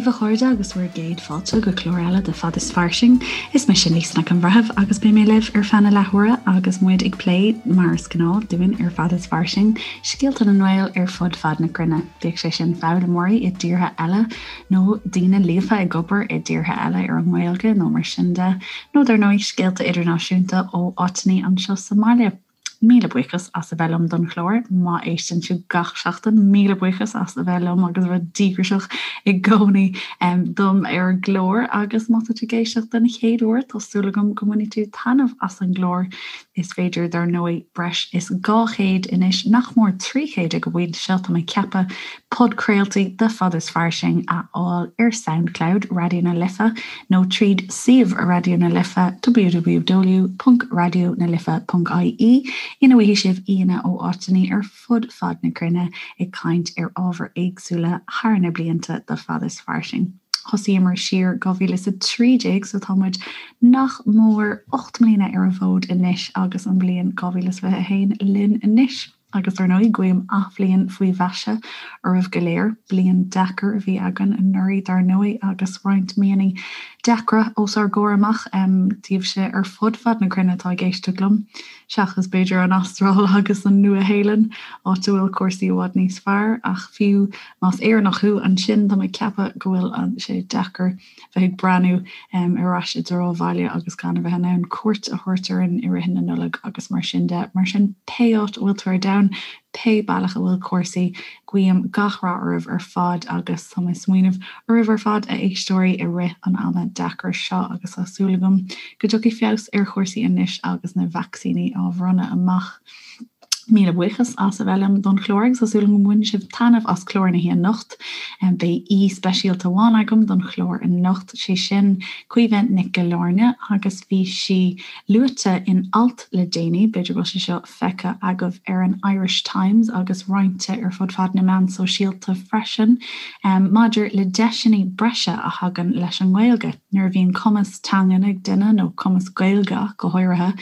daoibh a chairde agus bhur gcéad fáilte go clár eile de Fad is Fairsing. Is mise Lisa Nic an Bhreithimh agus beidh mé libh ar feadh na leathuaire agus muid ag plé, mar is gnáth dúinn ar Fad is Fairsing, scéalta na nGael ar fud fad na cruinne. Bíodh sé sin foghlaimeoirí i dtíortha eile nó daoine líofa ag obair i dtíortha eile ar an nGaeilge nó mar sin de, nó dar ndóigh scéalta idirnáisiúnta ó áiteanna anseo sa mbaile. Míle buíochas as a bheith liom don chlár. Má éisteann tú gach seachtain, míle buíochas as a bheith liom agus a bheith díograiseach i gcónaí dom ar an gclár. Agus má tá tú ag éisteacht den chéad uair, tá súil agam go mbainfidh tú taitneamh as an gclár. Is féidir, dar ndóigh, breis is 200 anois, nach mór 300 ag an bpointe seo, tá mé ag ceapadh, podchraoltaí de Fad is Fairsing a fháil ar Soundcloud Raidió na Life nó tríd suíomh Raidió na Life, www.raidionalife.ie, ina bhfaighidh sibh aíonna ó áiteanna ar fud fad na cruinne ag caint ar ábhair éagsúla thar na blianta de Fad is Fairsing. Thosaíomar siar 2013 so tá muid nach mór 8 mbliana ar an bhfód anois agus an bhliain 2021 linn anois. Agus dar ndóigh, guím athbhliain faoi mhaise oraibh go léir. Bliain deacair a bhí againn anuraidh dar ndóigh agus roinnt míonna deacra os ár gcomhair amach daoibhse ar fud fad na cruinne atá ag éisteacht liom, seachas b'fhéidir an Astráil agus an Nua-Shéalainn, áit a bhfuil cúrsaí i bhfad níos fearr. Ach fiú más Éireannach thú ansin, tá mé ag ceapadh go bhfuil sé deacair bheith ag breathnú ar ais i dtreo an bhaile agus gan a bheith in ann cuairt a thabhairt orainn i rith na Nollag agus mar sin de. Mar sin, pé áit a bhfuil tú ar domhan, pé bealach a bhfuil cúrsaí, guím gach rath oraibh ar fad agus tá mé ag smaoineamh oraibh ar fad, a éisteoirí, i rith an ama deacair seo agus tá súil agam go dtiocfaidh feabhas ar chúrsaí anois agus na vacsaíní á bhronnadh amach. Míle buíochas as a bheith liom don chlár agus tá súil agam go mbaineann sibh taitneamh as clár na hoíche anocht. Beidh aoi speisialta amháin agam don chlár anocht, sé sin Caoimhe Nic Giollarnáth agus bhí sí luaite in alt le déanaí, b'fhéidir go bhfuil sé seo feicthe agaibh ar an Irish Times agus roinnte ar fud fad na meán sóisialta freisin, maidir le deiseanna breise a thagann leis an nGaeilge. Nuair a bhíonn cumas teangan ag duine, nó cumas Gaeilge ach go háirithe,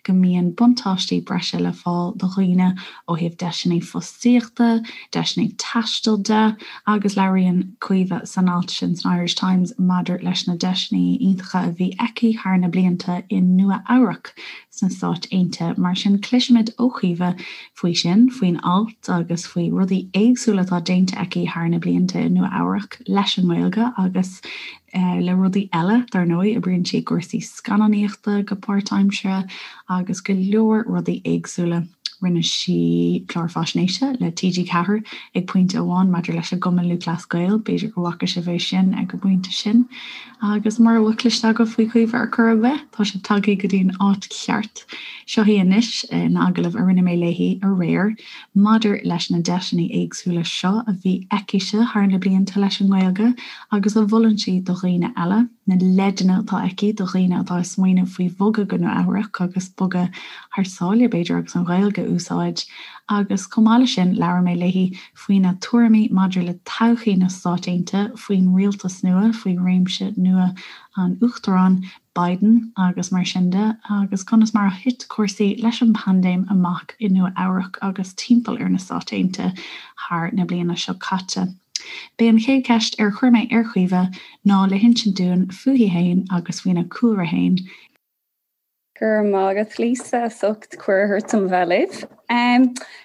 go mbíonn buntáistí breise le fáil do dhaoine ó thaobh deiseanna fostaíochta, deiseanna taistil de agus labhraíonn Caoimhe san alt sin san Irish Times maidir leis na deiseanna iontacha a bhí aici thar na blianta i Nua Eabhrac sna Stáit Aontaithe. Mar sin cloisfimid ó Chaoimhe faoi sin, faoin alt agus faoi rudaí éagsúla atá déanta aici thar na blianta i Nua Eabhrac leis an nGaeilge agus le rudaí eile, dar ndóigh, oibríonn sí i gcúrsaí scannánaíochta go páirtaimseartha agus go leor rudaí éagsúla. Rinne sí clár faisnéise le TG4 ag pointe amháin maidir leis an gCumann Lúthchleas Gael, b'fhéidir go bhfaca sibh é sin ag an bpointe sin. Agus mura bhfuil cloiste agaibh faoi Chaoimhe ar chor ar bith, tá sibh tagtha go dtí an áit cheart. Seo í anois in agallamh a rinne mé léi aréir. Maidir leis na deiseanna éagsúla seo a bhí aicise thar na blianta leis an nGaeilge agus a mholann sí do dhaoine eile, na leideanna atá aici do dhaoine atá ag smaoineamh faoi bhogadh go Nua Eabhrac agus bogadh thar sáile, b'fhéidir, agus an Ghaeilge a úsáid. Agus chomh maith leis sin, labhair mé léi faoina tuairimí maidir le todhchaí na Stát Aontaithe, faoin rialtas nua, faoi réimse nua an Uachtaráin, Biden agus mar sin de, agus conas mar a thit cúrsaí leis an bpaindéim amach i Nua Eabhrac agus timpeall ar na Stáit Aontaithe thar na bliana seo caite. B'é an chéad cheist ar chuir mé ar Chaoimhe ná le hinsint dúinn fúithi fhéin agus faoina cúlra fhéin. Go raibh maith agat Lisa as ucht cuireadh a thabhairt dom bheith libh.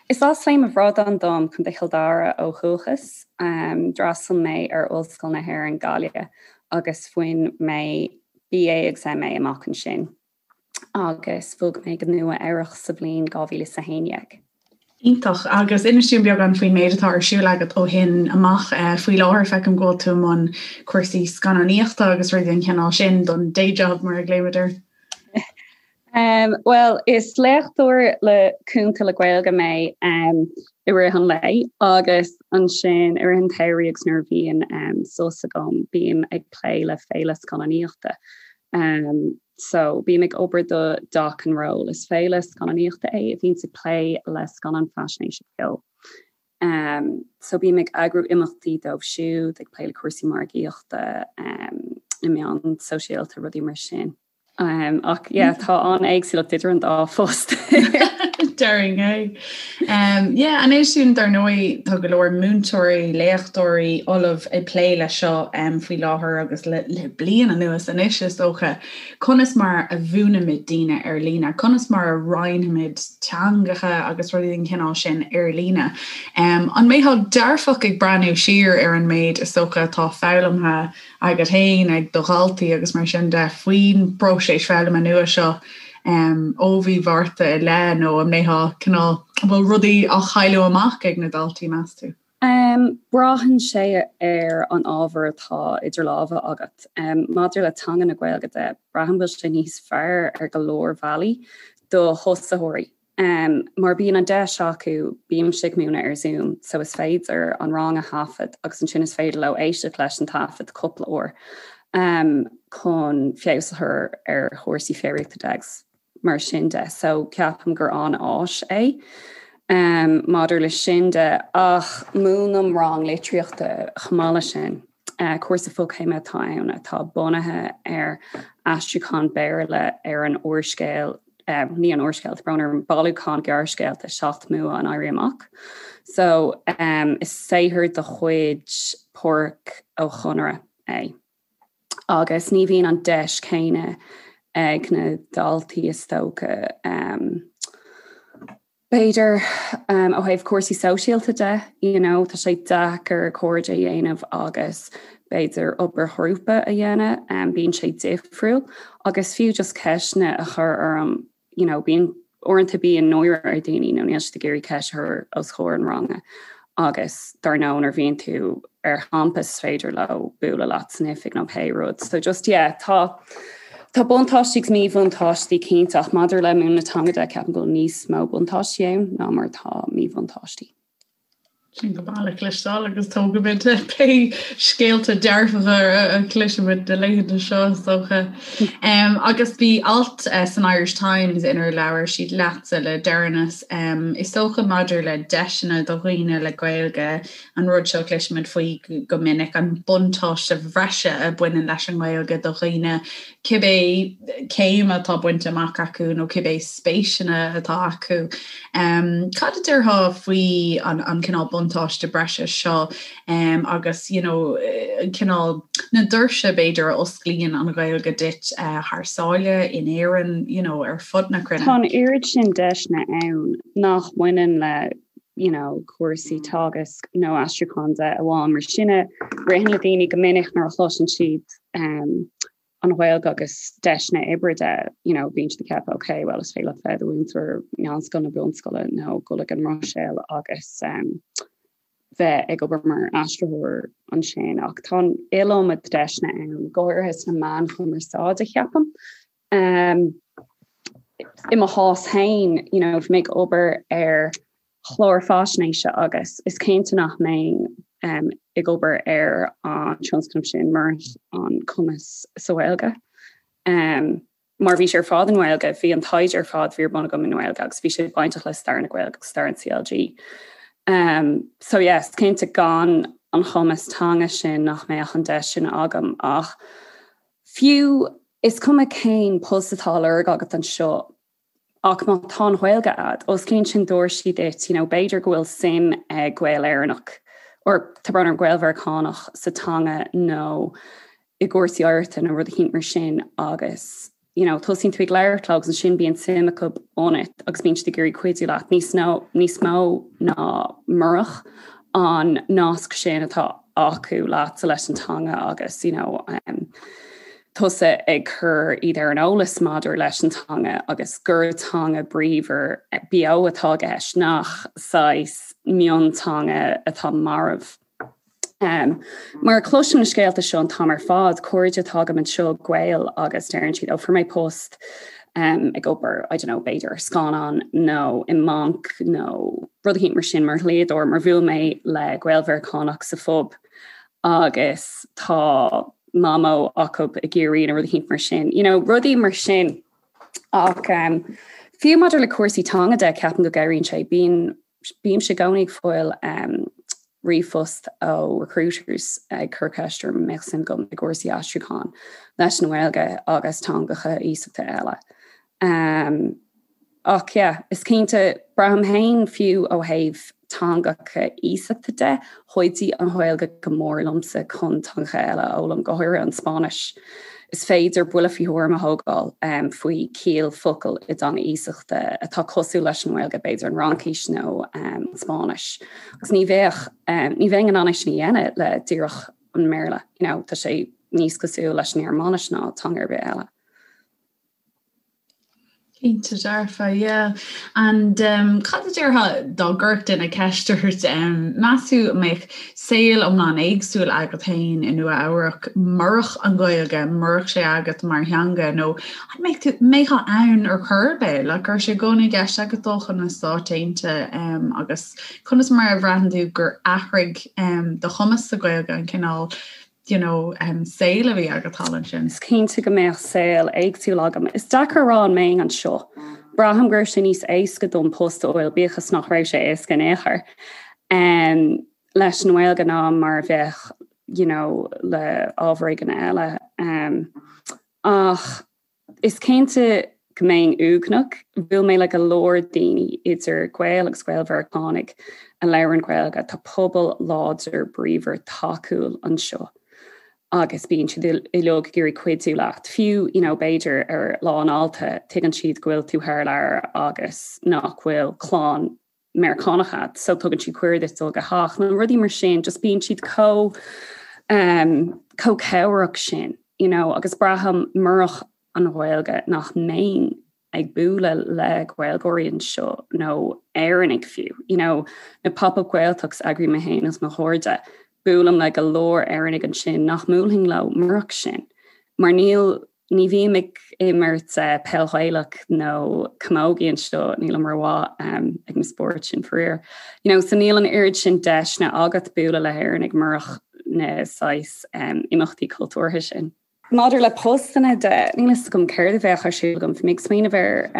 Is as Léim an Bhradáin dom, Contae Chill Dara ó dhúchas. D'fhreastail mé ar Ollscoil na hÉireann Gaillimh agus bhain mé BA agus MA amach ansin agus bhog mé go Nua Eabhrach sa bhliain 2011. Iontach. Agus inis dúinn beagán faoin méid atá ar siúl agat ó shin amach. Faoi láthair feicim go bhfuil tú i mbun cúrsaí scannánaíochta agus rudaí den chineál sin don day job mar a ghlaoimid air. Um, well, is léachtóir le cúnta le Gaeilge mé um, i rith an lae agus ansin i rith an tsamhraidh agus nuair a bhíonn um, sos agam bím ag plé le féile scannánaíochta. Um, so bím ag obair do Doc and Roll is féile scannánaíochta é a bhíonns ag plé le scannáin faisnéise beo. Um, so bím ag eagrú imeachtaí dóibh siúd ag plé le cúrsaí margaíochta um, na meáin sóisialta rudaí mar sin. Um, ach yeah, tá an-éagsúlacht idir an dá phost. Déarfainn é. Yeah, anois sin dar ndóigh tá go leor múinteoirí, léachtóirí, ollamh ag plé leis seo faoi láthair agus le bliain anuas anois is dócha. Conas mar a mhúinimid daoine ar líne? Conas mar a roinnimid teangacha agus rudaí den chineál sin ar líne? An mbeifeá dearfach ag breathnú siar ar an méid is dócha atá foghlamtha agat féin, ag do dhaltaí agus mar sin de faoin bpróiseas foghlama nua seo ó mhí Mhárta i leith nó an mbeifeá cineál, an bhfuil rudaí á chailleadh amach ag na daltaí, meas tú? Braitheann sé ar an ábhar atá idir lámha agat. Maidir le teanga na Gaeilge de, braithim go bhfuil sé níos fearr ar go leor bealaí do thosaitheoirí. Mar bíonn an deis acu, bímse ag múineadh ar Zoom, so is féidir an rang a thaifead agus ansin is féidir leo éisteacht leis an taifead cúpla uair chun feabhas a chur ar chúrsaí foghraíochta de agus mar sin de. So ceapaim gur an-áis é maidir leis sin de. Ach múinim rang litríochta chomh maith leis sin. Cúrsa fochéime atá ann atá bunaithe ar aistriúchán Béarla ar an úrscéal ní an úrscéal, tá brón orm, bailiúchán gearrscéalta 7 mBua an Éirí Amach. So is saothar de chuid Pádraic Ó Conaire é. Agus ní bhíonn an deis chéanna ag na daltaí is dócha. B'fhéidir ó thaobh cúrsaí sóisialta de, you know, tá sé deacair cairde a dhéanamh agus b'fhéidir obair ghrúpa a dhéanamh, bíonn sé difriúil agus fiú just ceisteanna a chur orm, you know, bíonn uaireanta bíonn náire ar dhaoine nó níl siad ag iarraidh ceist a chur os comhair an ranga agus dar ndóigh nuair a bhíonn tú ar champas is féidir leo bualadh leat san oifig nó pé rud. So just yeah, tá tá buntáistí agus míbhuntáistí cinnte ach maidir le múineadh na teanga de ceapaim go bhfuil níos mó buntáistí ann ná mar atá míbhuntáistí. Sin go maith le cloisteáil agus tógfaimid pé scéalta dearfacha a chloisimid na laethanta seo is dócha. Agus bhí alt san Irish Times inar labhair siad leatsa le deireanas, is dócha maidir le deiseanna do dhaoine le Gaeilge, an rud seo a chloisimid faoi go minic, an buntáiste bhreise a bhaineann leis an nGaeilge do dhaoine cibé céim atá bainte amach acu nó cibé spéiseanna atá acu. Cad a déarfá faoi an cineál buntáiste breise seo agus you know cineál na doirse b'fhéidir a osclaíonn an Ghaeilge duit thar sáile, in Éirinn, you know ar fud na cruinne? Tá an oiread sin deiseanna ann nach mbaineann le you know cúrsaí teagaisc nó aistriúcháin de amháin mar sin a ritheann le daoine go minic nuair a chloiseann siad um, an Ghaeilge agus deiseanna oibre de, you know, bíonn siad ag ceapadh ok, well is féidir leat bheith i do mhúinteoir meánscoile nó bunscoile nó dul ag an mBruiséil agus um, bheith ag obair mar aistritheoir ansin ach tá an iliomad deiseanna ann, go háirithe sna meáin chumarsáide ceapaim. Um, I mo chás féin, you know, bhí mé ag obair ar chlár faisnéise agus is cinnte nach mbeinn ag obair ar an tionscnamh sin murach an cumas sa Ghaeilge. Mar bhí sé ar fad i nGaeilge, bhí an taighde ar fad a bhí ar bun agam i nGaeilge agus bhí sé bainteach le stair na Gaeilge agus stair an CLG. So yes, cinnte gan an chumas teanga sin nach mbeadh an deis sin agam ach fiú is cuma cén post atá á lorg agat anseo, Ach má tá an Ghaeilge a'd, osclaíonn sin doirsí duit, you know, b'fhéidir go bhfuil suim ag Gael Éireannach, or tá brón orm, Gael Mheiriceánach sa teanga nó i gcúrsaí oidhreachta nó rud eicínt mar sin agus, you know, tosaíonn tú ag labhairt leo agus ansin bíonn suim acu ionat agus bíonn siad ag iarraidh cuidiú leat níos nó níos mó ná murach an nasc sin atá acu leatsa leis an teanga agus, you know, um, tusa ag cur iad ar an eolas maidir leis an teanga agus gur teanga bríomhar beo atá i gceist, nach saghas mionteanga atá marbh. Um, mar cloisim na scéalta seo an t-am ar fad, cairde atá agam anseo Gaeil agus deireann siad ó fuair mé post um, ag obair, I don't know, b'fhéidir scannán nó i mbanc nó rud eicínt mar sin mar dhlíodóir mar bhuail mé le Gael Mheiriceánach sa phub agus tá mamó acu i gCiarraí nó rud eicínt mar sin. You know, rudaí mar sin. Ach um, fiú maidir le cúrsaí teanga de ceapaim go gcabhraíonn sé. Bíonn bímse i gcónaí ag fáil um, ríomhphost ó recruiters ag cur ceist orm an mbeadh suim agam i gcúrsaí aistriúcháin leis an nGaeilge agus teangacha iasachta eile. Um, ach yeah, is cinnte. Braithim féin, fiú ó thaobh teangacha iasachta de, chuidigh an Ghaeilge go mór liomsa chun teangacha eile a fhoghlaim, go háirithe an Spáinnis. Is féidir buille faoi thuairim a thógáil faoi chiall focal i dteanga iasachta atá cosúil leis an nGaeilge, b'fhéidir an Fhraincis nó an Spáinnis. Agus ní bheadh, ní bheinn in ann é sin a dhéanamh le díreach an mBéarla, you know, tá sé níos cosúil leis an nGearmáinis ná teanga ar bith eile. Cinnte dearfa, yeah. And um, cad a déarfá dá gcuirfeadh duine ceist ort, um, meas tú an mbeadh saol iomlán éagsúil agat féin i Nua Eabhrac murach an Ghaeilge, murach sé agat mar theanga, nó an mbeadh tú, mbeifeá ann ar chor ar bith, like, raibh sé i gcónaí i gceist agat dul chun na Stáit Aontaithe um, agus conas mar a bhraitheann tú gur athraigh um, do chumas sa Ghaeilge an cineál you know, saol a bhí agat thall ansin. Is cinnte go mbeadh saol éagsúil agam. Is deacair a rá an mbeinn anseo. Braithim go raibh sé níos éasca dom post a fháil, bíodh is nach raibh sé éasca in aon chor, um, leis an nGaeilge ná mar a bheadh, you know, le ábhar éigin eile. Um, ach Is cinnte go mbeinn uaigneach. Bhuail mé le go leor daoine, idir Gaeil agus Gael-Mheiriceánaigh, a labhrann Gaeilge. Tá pobal láidir, bríomhar, tacúil anseo agus bíonn siad uilig ag iarraidh cuidiú leat. Fiú, you know, b'fhéidir ar Lá an Fháilte, tuigeann siad go bhfuil tú thar lear agus nach bhfuil clann Meiriceánach agat so tugann siad cuireadh duit dul go theach nó rudaí mar sin, just bíonn siad chomh um, chomh cabhrach sin, you know, agus braithim murach an Ghaeilge nach mbeinn ag bualadh le Gaeilgeoirí anseo nó Éireannaigh fiú, you know, na pop-up Gaeltachts a eagraím mé féin agus mo chairde, buailim le go leor Éireannaigh ansin nach mbuailfinn leo murach sin, mar níl Ní bhím ag imirt peil Ghaelach nó camogie anseo, nílim rómhaith ag na spóirt sin faraor. You know, so níl an oiread sin deiseanna agat bualadh le hÉireannaigh murach na saghas imeachtaí cultúrtha sin. Maidir le postanna de, níl a fhios agam céard a bheadh ar siúl agam. Bhí mé ag smaoineamh ar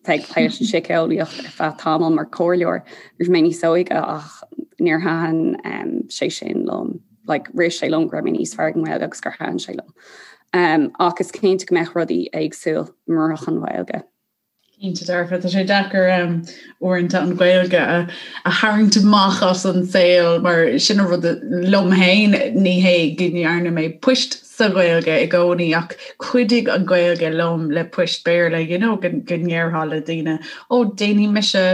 bheith ag plé leis an síceolaíocht ar feadh tamaill mar chomhairleoir nuair a bhí mé níos óige ach níor thaitin sé sin liom. Like, rith sé liom go raibh mé níos fearr ag an nGaeilge agus gur thaitin sé liom. Um, ach is cinnte go mbeadh rudaí éagsúil murach an Ghaeilge. Cinnte dearfa, tá sé deacair um, uaireanta an Ghaeilge a, a tharraingt amach as an saol mar sin an rud liom féin ní hé go ndearna mé poist sa Ghaeilge i gcónaí ach chuidigh an Ghaeilge liom le poist Béarla you know, go, go ndéarfá le daoine ó déanfaidh mise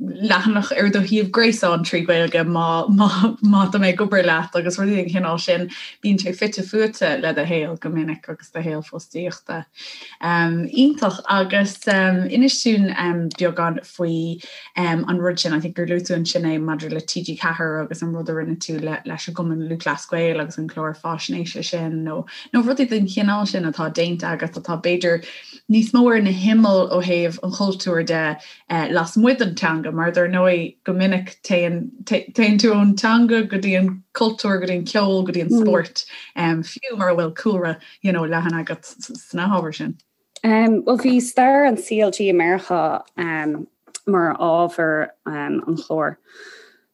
leathanach ar do shuíomh gréasáin trí Ghaeilge má, má, má tá mé ag obair leat agus rudaí den chineál sin. Bíonn sé fite fuaite le do shaol go minic agus do shaol fostaíochta. Iontach agus inis dúinn beagán faoi an rud sin, I think gur luaigh tú ansin é maidir le TG4 agus an rud a rinne tú leis an gCumann Lúthchleas Gael agus an clár faisnéise sin nó nó rudaí den chineál sin atá déanta agat atá b'fhéidir níos mó ar na himill ó thaobh an chultúir de lasmuigh den teanga, mar dar ndóigh go minic téann téann tú ón teanga go dtí an cultúr, go dtí an ceol, go dtí an spórt, fiú mura bhfuil cúlra you know, leathan agat sna hábhair sin. Um, well bhí stair an CLG i Meiriceá um, mar ábhar um, an chláir.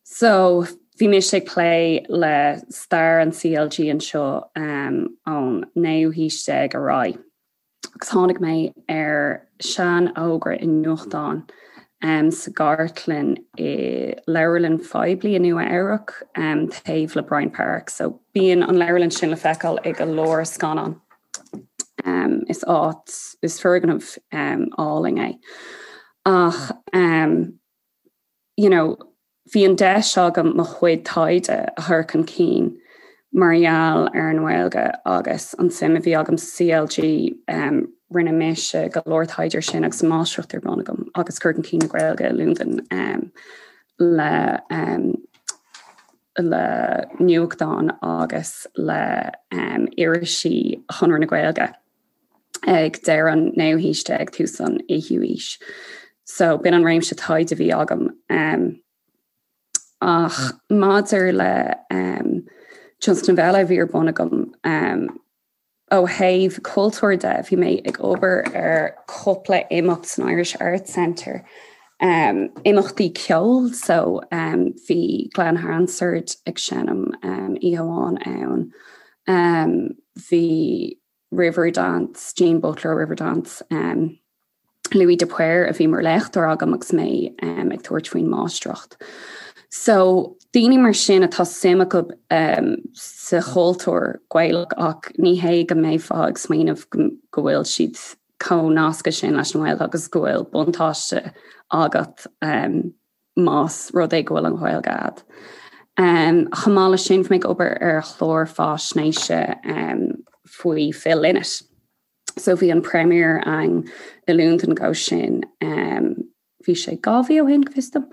So bhí mise ag plé le stair an CLG anseo um, ón naoú haois déag ar aghaidh. agus tháinig mé ar sean-fhógra i nuachtán sa gcartlann i leabharlann phoiblí i Nua Eabhrac taobh le Bryant Park. So bíonn an leabharlann sin le feiceáil i go leor scannán. Is áit, is foirgneamh álainn é. Ach you know, bhí an deis agam mo chuid taighde a chur chun cinn mar gheall ar an nGaeilge agus an suim a bhí agam sa CLG. Rinne mise go leor taighde ar sin agus máistreacht ar bun agam agus cur chun cinn na Gaeilge i Londain le le nuachtáin agus le irisí Chonradh na Gaeilge. ag deireadh an naoú haois déag, tús an fhichiú haois. So b'in an réimse taighde a bhí agam. Um, ach maidir le um, tionscnamh eile a bhí ar bun agam um, ó thaobh cultúir de, bhí mé ag obair ar cúpla imeacht san Irish Arts Centre. Um, imeachtaí ceoil, so um, bhí Glen Hansard ag seinm um, oíche amháin ann. Um, bhí Riverdance, Jean Butler Riverdance. Um, Louis de Paor a bhí mar léachtóir agam agus mé um, ag tabhairt faoin máistreacht. So daoine mar sin atá suim acu um, sa chultúr Gaelach ach ní hé go mbeifeá ag smaoineamh go, go bhfuil siad chomh nasctha sin leis an nGaeilge agus go bhfuil buntáiste agat um, más rud é go bhfuil an Ghaeilge agat. Um, chomh maith leis sin, bhí mé ag obair ar chlár faisnéise um, faoi Phil Lynott. So bhí an premiere ann i Londain dhó sin um, bhí sé 2 mhí ó shin go bhfios dom.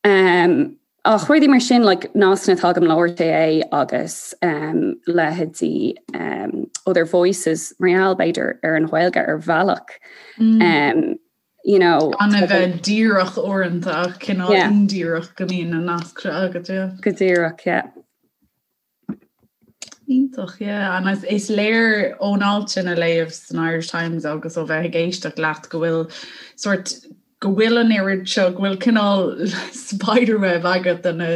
Um, ach rudaí mar sin like, nascanna atá agam le RTÉ agus um, leithéidí um, Other Voices mar gheall b'fhéidir ar an Ghaeilge ar bhealach. Mm. Um, you know, Gan a bheith díreach uaireanta ach cineál yeah. indíreach go mbíonn na naisc seo agat. Yeah. Go díreach, yeah. Iontach, yeah. And is léir ón alt sin a léamh san Irish Times agus ó bheith ag éisteacht leat go bhfuil sort go bhfuil an oiread seo, go bhfuil cineál spiderweb agat de na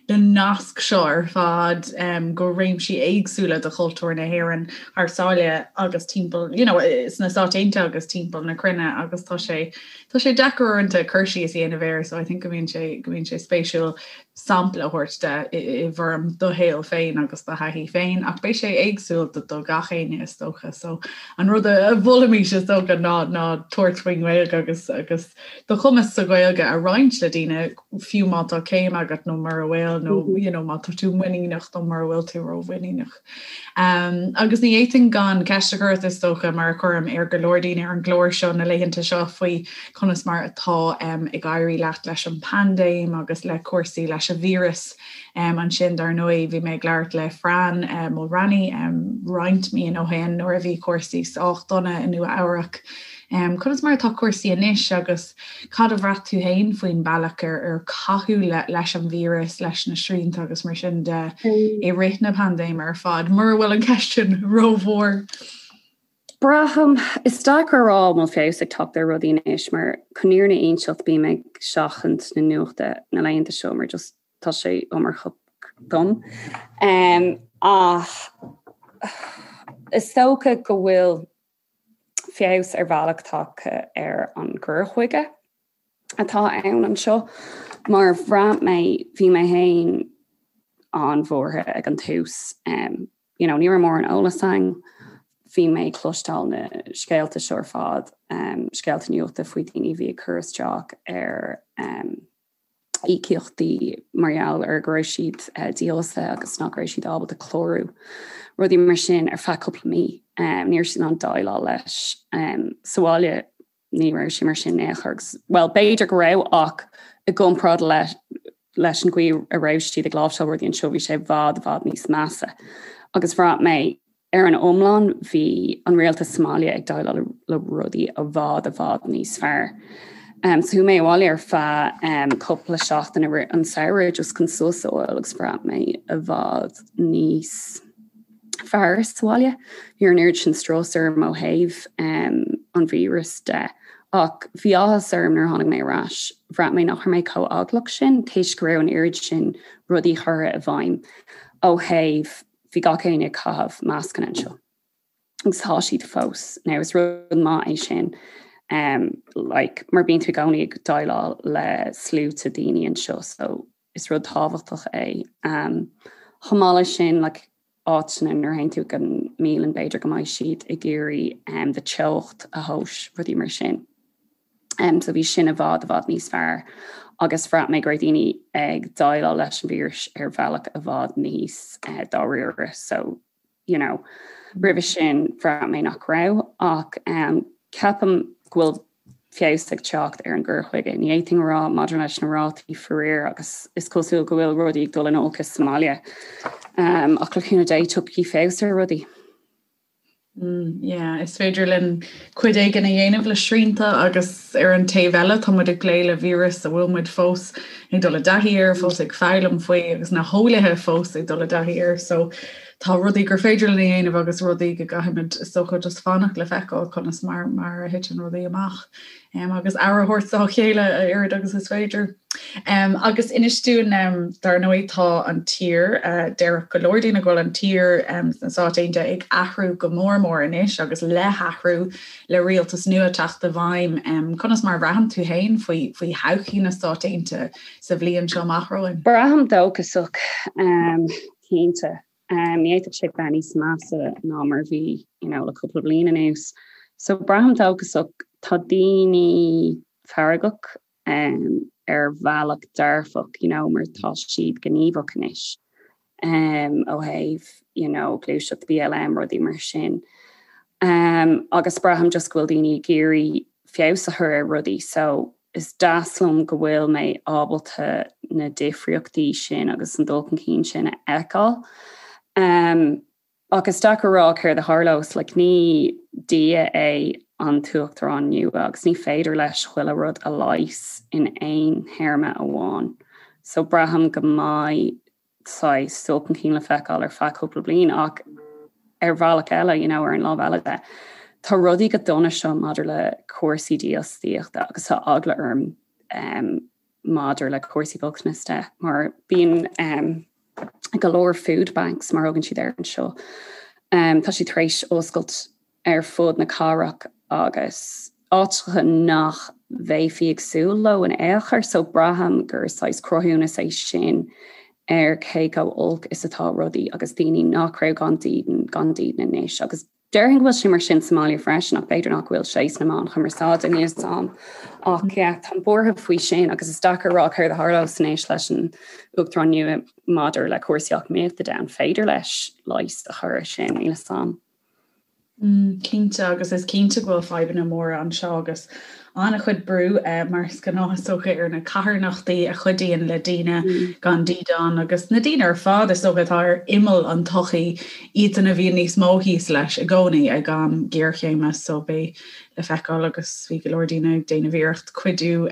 na naisc seo ar fad um, go réimsí éagsúla de chultúr na hÉireann thar sáile agus timpeall, you know, sna Stáit Aontaithe agus timpeall na cruinne agus tá sé tá sé deacair uaireanta cur síos a dhéanamh air so I think go mbíonn sé go mbíonn sé spéisiúil sampla a thabhairt de i bhfoirm do shaol féin agus do thaithí féin, ach beidh sé éagsúil do do gach éinne is dócha. So an rud a mholfaimis is dócha ná ná tabhairt faoin nGaeilge agus agus do chumas sa Ghaeilge a roinnt le daoine fiú má tá céim agat nó mura bhfuil nó you know, má tá tú muiníneach nó mura bhfuil tú rómhuiníneach. Um, agus ní fhéadfainn gan ceist a chur ort is dócha mar a chuirim ar go leor daoine ar an gclár seo na laethanta seo faoi conas mar atá um, ag éirí leat leis an bpaindéim agus le cúrsaí leis an víreas. Um, ansin dar ndóigh bhí mé ag labhairt le Fran uh, Mulraney um, roinnt míonna ó shin nuair a bhí cúrsaí sách dona i Nua Eabhrac. Um, conas mar atá cúrsaí anois agus Cad a bhraith tú féin faoin bealach ar ar caitheadh leis an víreas, leis na srianta agus mar sin de i rith na paindéime ar fad, mura bhfuil an cheist sin rómhór? Braithim, is deacair a rá an bhfuil feabhas ag teacht ar rudaí anois mar chun an fhírinne a inseacht bím ag seachaint na nuachta na laethanta seo mar just tá sé iomarcach dom. Ach is dócha go bhfuil feabhas ar bhealach tagtha ar an gcur chuige atá ann anseo mar bhraith mé, bhí mé féin an-bhuartha ag an tús. You know, ní raibh mórán eolas ann, bhí mé ag cloisteáil na scéalta seo ar fad, scéalta nuachta faoi daoine a bhí ag cur isteach ar íocaíochtaí mar gheall ar go raibh siad dífhostaithe agus nach raibh siad ábalta clárú, rudaí mar sin ar feadh cúpla mí. Ní raibh siad in ann déileáil leis. Sa bhaile ní raibh sé mar sin in aon chor agus, bhuel, b'fhéidir go raibh ach i gcomparáid le leis an gcaoi a raibh siad ag láimhseáil rudaí anseo bhí sé i bhfad i bhfad níos measa. Agus bhraith mé Ar an iomlán, bhí an rialtas sa mbaile ag déileáil le rudaí i bhfad i bhfad níos fearr. So chuaigh mé abhaile ar feadh cúpla seachtain i rith an samhradh just chun sos a fháil agus bhraith mé i bhfad níos fearr sa bhaile. Ní raibh an oiread sin strus orm ó thaobh an víreas de. Ach bhí áthas orm nuair a tháinig mé ar ais. Bhraith mé nach raibh mé chomh eaglach sin toisc go raibh an oiread sin rudaí curtha i bhfeidhm ó thaobh bhí gach éinne ag caitheamh mascanna anseo agus tá siad fós. Now is rud maith é sin um, like, mar bíonn tú i gcónaí ag déileáil le sluaite daoine anseo so is rud tábhachtach é. Um, chomh maith leis sin like, áiteanna nuair a théann tú go mbialann b'fhéidir go mbeidh siad ag iarraidh um, do teocht a thomhas, rudaí mar sin. Um, so bhí sin i bhfad i bhfad níos fearr agus bhraith mé go raibh daoine ag déileáil leis an víreas ar bhealach i bhfad níos uh, dáiríre. So, you know, roimhe sin bhraith mé nach raibh ach um, ceapaim go bhfuil feabhas ag teacht ar an gcur chuige. Ní fhéadfainn a rá maidir leis na rátaí faraor agus is cosúil go bhfuil rudaí ag dul in olcas sa mbaile. Um, ach le cúnamh Dé tiocfaidh feabhas ar rudaí. Mm, yeah, is féidir linn cuid éigin a dhéanamh le srianta agus ar an taobh eile tá muid ag plé le víreas a bhfuil muid fós ag dul i dtaithí air, fós ag foghlaim faoi agus na heolaithe fós ag dul i dtaithí air. So Tá rudaí gur féidir linn a dhéanamh agus rudaí go gcaithfimid is dócha just fanacht le feiceáil conas mar mar a thiteann rudaí amach um, agus aire a thabhairt dá chéile a oiread agus is féidir. Um, agus inis dúinn um, dar ndóigh tá an tír uh, déarfadh go leor daoine go bhfuil an tír um, sna Stáit Aontaithe ag athrú go mór mór anois agus le hathrú le rialtas nua teacht i bhfeidhm. Um, conas mar a bhraitheann tú féin faoi, faoi thodhchaí na Stát Aontaithe sa bhliain seo amach romhainn? Braithim dóchasach. Um, cinnte. Ní fhéadfadh sé bheith níos measa ná mar a bhí you know le cúpla bliain anuas. So braithim dóchasach, tá daoine feargach ar bhealach dearfach you know mar tá siad gníomhach anois ó thaobh you know gluaiseacht BLM rudaí mar sin. Agus braithim just go bhfuil daoine ag iarraidh feabhas a chur ar rudaí so is deas liom go bhfuil mé ábalta na difríochtaí sin agus an dul chun cinn sin a fheiceáil. Um, ach is deacair a rá céard a tharlós, like, ní Dia é an tUachtarán nua agus ní féidir leis chuile rud a leigheas in aon théarma amháin. So braithim go mbeidh saghas dul chun cinn le feiceáil ar feadh cúpla bliain ach ar bhealach eile, you know, ar an lámh eile de, tá rudaí go dona seo maidir le cúrsaí dífhostaíochta agus tá eagla orm um, maidir le cúrsaí bochtanais de mar bíonn um, go leor food banks mar a thugann siad air anseo. Um, tá siad tar éis oscailt ar fud na cathrach agus áiteacha nach mbeifí ag súil leo in aon chor, so braithim gur saghas cruthúnas é sin ar cé chomh olc is atá rudaí agus daoine nach raibh gan dídean, gan dídean anois. Agus déarfainn go bhfuil sé mar sin sa mbaile freisin ach b'fhéidir nach bhfuil sé sna meáin chumarsáide, níl 'fhios a'm. Ach yeah, táim buartha faoi sin agus is deacair a rá céard a tharlós anois leis an Uachtarán nua maidir le cúrsaí eacnamaíochta de, an féidir leis leigheas a chur ar sin, níl 'fhios a'm. Cinnte, agus is cinnte go bhfuil fadhbanna móra anseo agus an-chuid brú, mar is gnáth is dócha, ar na carthanachtaí a chuidíonn le daoine gan dídean agus na daoine ar fad is dócha atá ar imeall an tsochaí, iadsan a bhíonn níos mó thíos leis i gcónaí ag am géarchéime so beidh le feiceáil agus bhí go leor daoine ag déanamh iarracht cuidiú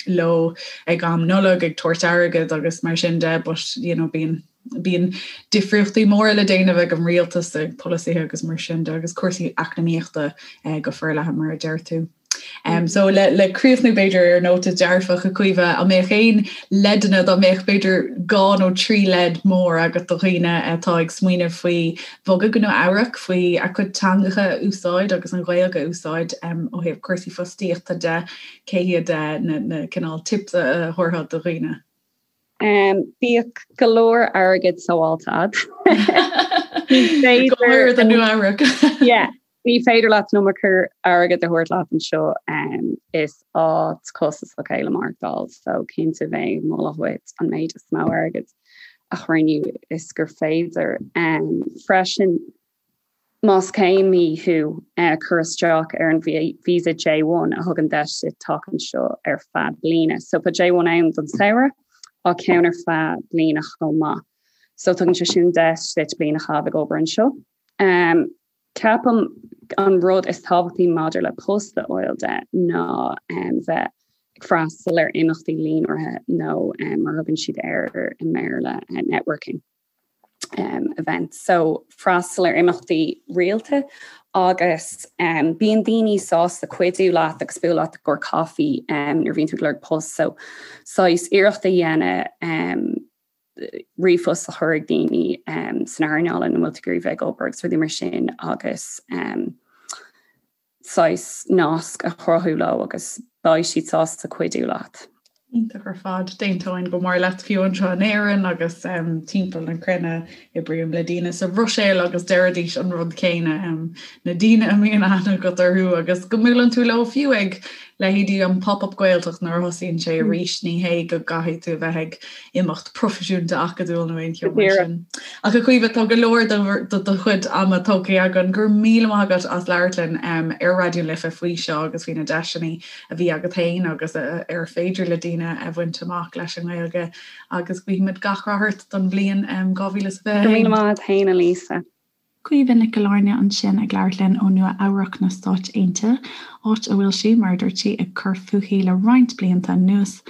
leo ag am Nollag ag tabhairt airgead agus mar sin de but you know bíonn Bíonn difríochtaí móra le déanamh ag an rialtas, ag polasaithe agus mar sin de, agus cúrsaí eacnamaíochta go forleathan mar a deir tú. So le le críochnú b'fhéidir ar nóta dearfach a Chaoimhe, an mbeadh aon leideanna dá mbeadh b'fhéidir dhá nó trí leid mór agat do dhaoine atá ag smaoineamh faoi bhogadh go Nua Eabhrac, faoi a gcuid teangacha a úsáid agus an Ghaeilge a úsáid ó thaobh cúrsaí fostaíochta de, cé hiad na na cineál tips a thabharfá do dhaoine? Bíodh go leor airgid sábháilte agat. Ní féidir do Nua Eabhrac. Yeah, ní féidir leat an iomarca airgid a thabhairt leat anseo. Is áit costasach é le maireachtáil, so cinnte bheinn ag moladh dhuit an méid is mó airgid a chruinniú is gur féidir. Freisin, Más céimí thú, cuir isteach ar an visa J1 a thugann deis duit teacht anseo ar feadh bliana. So tá J1 ann don samhradh ach ceann ar feadh bliana chomh maith. So tugann sé sin deis duit bliain a chaitheamh ag obair anseo. Ceapaim an rud is tábhachtaí maidir le post a fháil de ná bheith ag freastal ar imeachtaí líonraithe nó mar a thugann siad air i mBéarla networking. um, events. So freastal ar imeachtaí rialta agus um, bíonn daoine sásta cuidiú leat agus bualadh leat i gcomhair caife um, nuair a bhíonn tú ag lorg post. So saghas iarracht a dhéanamh um, ríomhphost a chur ag daoine um, san earnáil ina bhfuil tú ag iarraidh bheith ag obair agus rudaí mar sin agus um, saghas nasc a chruthú leo agus beidh siad sásta cuidiú leat. Iontach ar fad. D'aontóinn go mór leat fiú anseo in Éirinn agus timpeall na cruinne oibrím le daoine sa Bhruiséil agus deiridís an rud céanna, na daoine a mbíonn aithne agat orthu agus go mbuaileann tú leo fiú ag leithéidí an Pop-Up Gaeltacht nuair a thosaíonn sé arís, ní hé go gcaithfidh tú a bheith ag imeacht proifisiúnta acadúil nó aon cheo mar sin. Ach a Chaoimhe, tá go leor de do chuid ama tógtha againn. Go raibh míle maith agat as labhairt linn ar Raidió na Life faoi seo agus faoi na deiseanna a bhí agat féin agus ar féidir le daoine a bhaint amach leis an nGaeilge agus guímid gach rath ort don bhliain 2021. Go raibh míle maith agat féin, a Lisa. Caoimhe Nic Gill-Airne ansin ag labhairt linn ó Nua Eabhrac na Stáit Aontaithe, áit a bhfuil sí, mar a dúirt sí, ag cur fúithi le roinnt blianta anuas,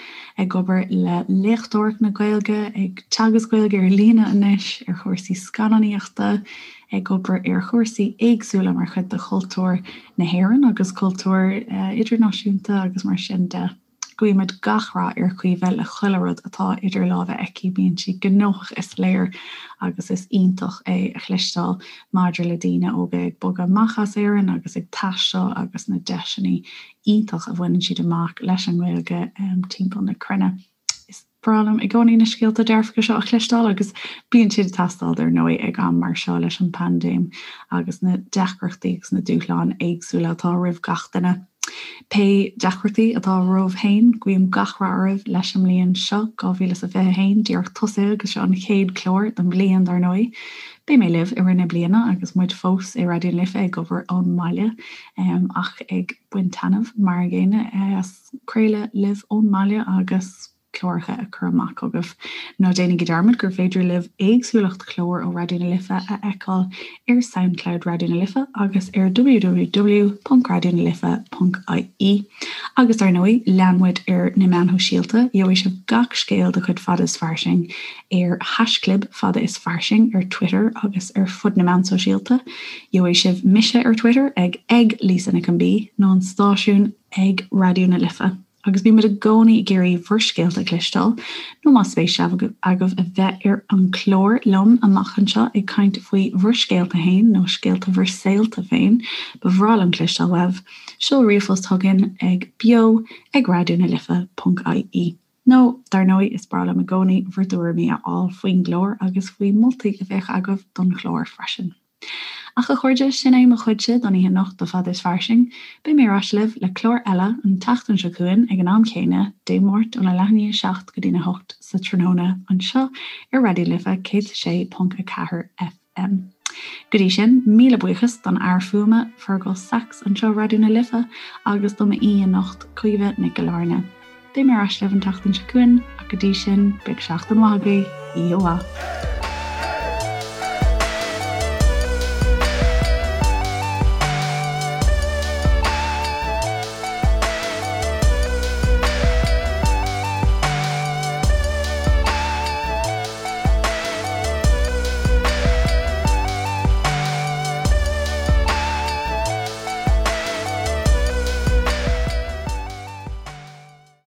ag obair le léachtóireacht na Gaeilge, ag teagasc Gaeilge ar líne anois, ar chúrsaí scannánaíochta, ag obair ar chúrsaí éagsúla mar chuid de chultúr na hÉireann agus cultúr idirnáisiúnta agus mar sin de. Guímid gach rath ar Chaoimhe le chuile rud atá idir lámha aici, bíonn sí gnóthach is léir agus is iontach é a chloisteáil maidir le daoine óga ag bogadh amach as Éirinn agus ag taisteal agus na deiseanna iontach a bhaineann siad amach leis an nGaeilge timpeall na cruinne. Is breá liom i gcónaí na scéalta dearfacha seo a chloisteáil agus bíonn siad ag teastáil dar ndóigh ag am mar seo leis an bpaindéim agus na deacrachtaí agus na dúshláin éagsúla atá roimh gach duine. Pé deacrachtaí atá romhaibh féin, guím gach rath oraibh leis an mbliain seo, 2021, díreach tosaithe agus seo an chéad chlár don bhliain dar ndóigh. Beidh mé libh i rith na bliana agus muid fós i Raidió na Life ag obair ón mbaile ach ag baint taitneamh mar an gcéanna as craoladh libh ón mbaile agus cláracha a chur amach chugaibh. Ná déanaigí dearmad gur féidir libh éagsúlacht chlár ó Raidió na Life a fheiceáil ar Soundcloud Raidió na Life agus ar www.raidionalife.ie. Agus dar ndóigh, lean muid ar na meáin shóisialta, gheobhaidh sibh gach scéal de chuid Fada is Fairsing ar haischlib Fada is Fairsing ar Twitter agus ar fud na meán sóisialta. Gheobhaidh sibh mise ar Twitter ag ag Lisa Nic an B nó an stáisiún ag Raidió na Life agus bímid i gcónaí ag iarraidh bhur scéalta a chloisteáil, nó más spéis agaibh a bheith ar an chlár liom amach anseo ag caint faoi bhur scéalta féin nó scéalta bhur saolta féin, ba bhreá liom cloisteáil uaibh. Seol ríomhphost chugainn ag beo ag raidionalife.ie. Nó, dar ndóigh, is breá liom i gcónaí bhur dtuairimí a fháil faoin gclár agus faoi mholtaí a bheadh agaibh don chlár freisin. Ach a chairde, sin é mo chuidse don oíche anocht do Fada is Fairsing. Beidh mé ar ais libh le clár eile an tseachtain seo chugainn ag an am chéanna, Dé Máirt óna leath i ndiaidh a 7 go dtína 8 sa tráthnóna anseo ar Raidió na Life 106.4 FM. Go dtí sin, míle buíochas don fhear fuaime, Fergal Sachs anseo Raidió na Life agus do m'aoi anocht, Caoimhe Nic Gill-Airne. Beidh mé ar ais libh an tseachtain seo chugainn ach go dtí sin, bíodh seachtain mhaith agaibh, oíche mhaith.